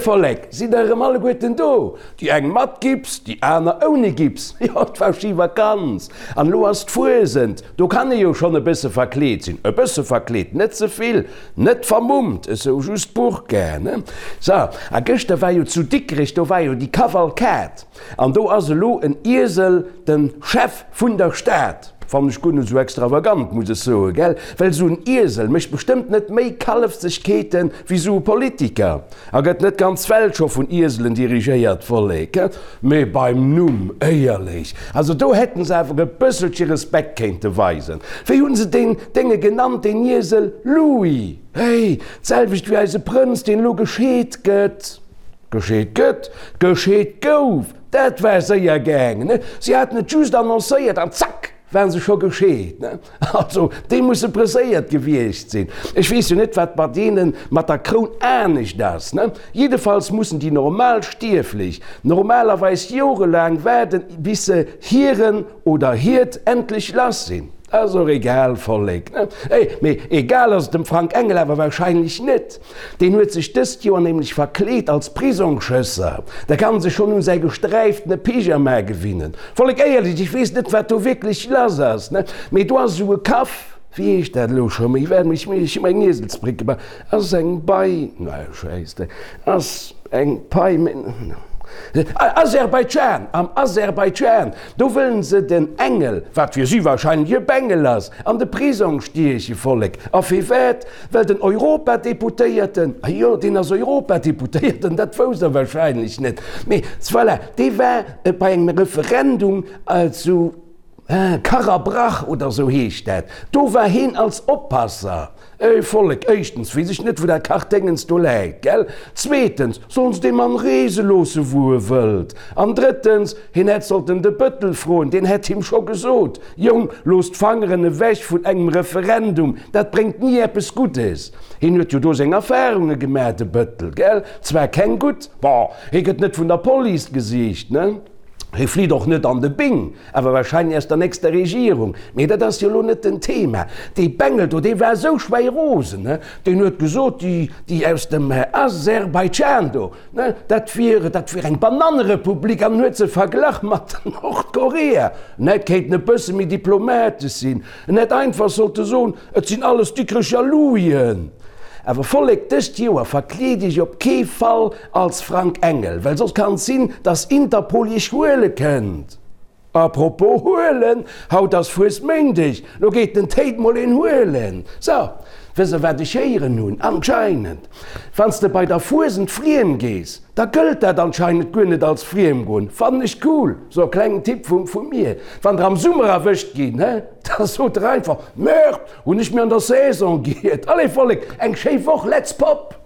Vollek, sidd der erëm alleguerten do? Déi eng mat Gips, déi aner ouni Gips. Jo, et war schi Vakanz an elo ass d'Fuesent. Do kann ee jo schonn e bësse verkleet sinn. E bësse verkleet, net ze vill, net vermummt, esou just d'Burka, ne? So, a gëschter war jo zu Dikrech, do war jo déi Kavalkad an do ass elo en Iesel de Chef vun der Stad. Fannen ech guer net esou extravagant, muss ech soen, gell? Well esou en Iesel mécht bestëmmt net méi Kallefsegkeeten wéi esou e Politiker. A gëtt net d'ganz Welt scho vun Ieselen dirigéiert, Vollek? Mee beim Numm, éierlech, also do hätten se awer e bësselche Respekt kéinte weisen. Wéi hunn se deen Dénge genannt, deen Iesel? Louis! Hey, d'selwecht wéi eise Prënz, deen elo gescheet gëtt. Gescheet gëtt? Gescheet gouf! Dat war séier gaangen, ne? Si haten et just annoncéiert an zack, waren se scho gescheet, ne? Also, déi musse presséiert gewiescht sinn. Ech weess jo net, wat bei deene mat der Kroun anescht ass, ne? Jiddefalls mussen déi normal Stierflech normalerweis jorelaang waarden, bis se hiren oder hiert endlech lass sinn. Ass och egal, Vollek, ne? Mee egal ass et dem Frank Engel awer wahrscheinlech net. Deen huet sech dëst Joer nämlech verkleet als Prisongschësser. Da kann sech schonn un säi gesträiftene Pyjama gewinnen. Vollek éierlech, ech weess net wat do wierklech lass ass, ne, mee do ass esou e Kaff, wéi heescht dat elo scho méi, well ech hu mer eng Ieselsbréck gemaach, ass eng Bei, na Schäissdreck, ass eng Pai, Aserbaidschan, am Aserbaidschan, do wëllen se den Engel, wat fir si wahrscheinlech e Bengel ass, an de Prisong stieche. Vollek, a firwat? Well den Europadeputéierten, ah jo, deen ass Europadeputéierten, dat wousst Der wahrscheinlech net, mee voilà, dee war bei engem Referendum zu Karabrach oder esou heescht dat, do war heen als Oppasser. Ey Vollek, éischtens weess ech net, wou dat Kachdéngens do läit, gell? Zweetens, sollen se dee Mann reese loosse wou e wëllt? An drëttens, hien hätt sollten de Bëttel froen, deen hätt him scho gesot, Jong, looss d'Fangeren ewech vun engem Referendum, dat bréngt ni eppes Guddes. Hien huet jo do seng Erfahrunge gemaach, de Bëttel, gell? Zwar keng gutt, bon, hie gëtt net vun der Police gesicht, ne? Hie flitt och net an de Bing, awer wahrscheinlech aus der nächster Regierung. Mee dat ass jo elo net den Thema. Dee Bengel do, dee war esou schwäirosen, ne? Deen huet gesot, déi, déi aus dem Aserbaidschan do, Ne, dat wier, dat wier eng Banannerepublik an en huet se verglach mat Nordkorea. En hätt kéinten e bësse méi diplomatesch sinn. En hätt einfach sollte soen, et sinn alles Dikrecher Louien. Awer Vollek, dëst Joer verkleet iech op kee Fall als Frank Engel, well soss kann et sinn, dass Interpol iech huele kënnt. A propos huelen, haut ass Fuesméindeg, lo geet den Théid mol een huelen. So, wëss der wat ech héieren hunn? Anscheinend, wann s de bei der Fuesent friem gees, da gëllt dat anscheinend guer net als Friemgoen. Fannen ech cool. So, klengen Tipp vu vu mir, wann der am Summer erwëscht ginn, he, da sot der einfach, Merde, hunn ech mir an der Saison giert. Allez Vollek, eng schéi Woch, let's pop!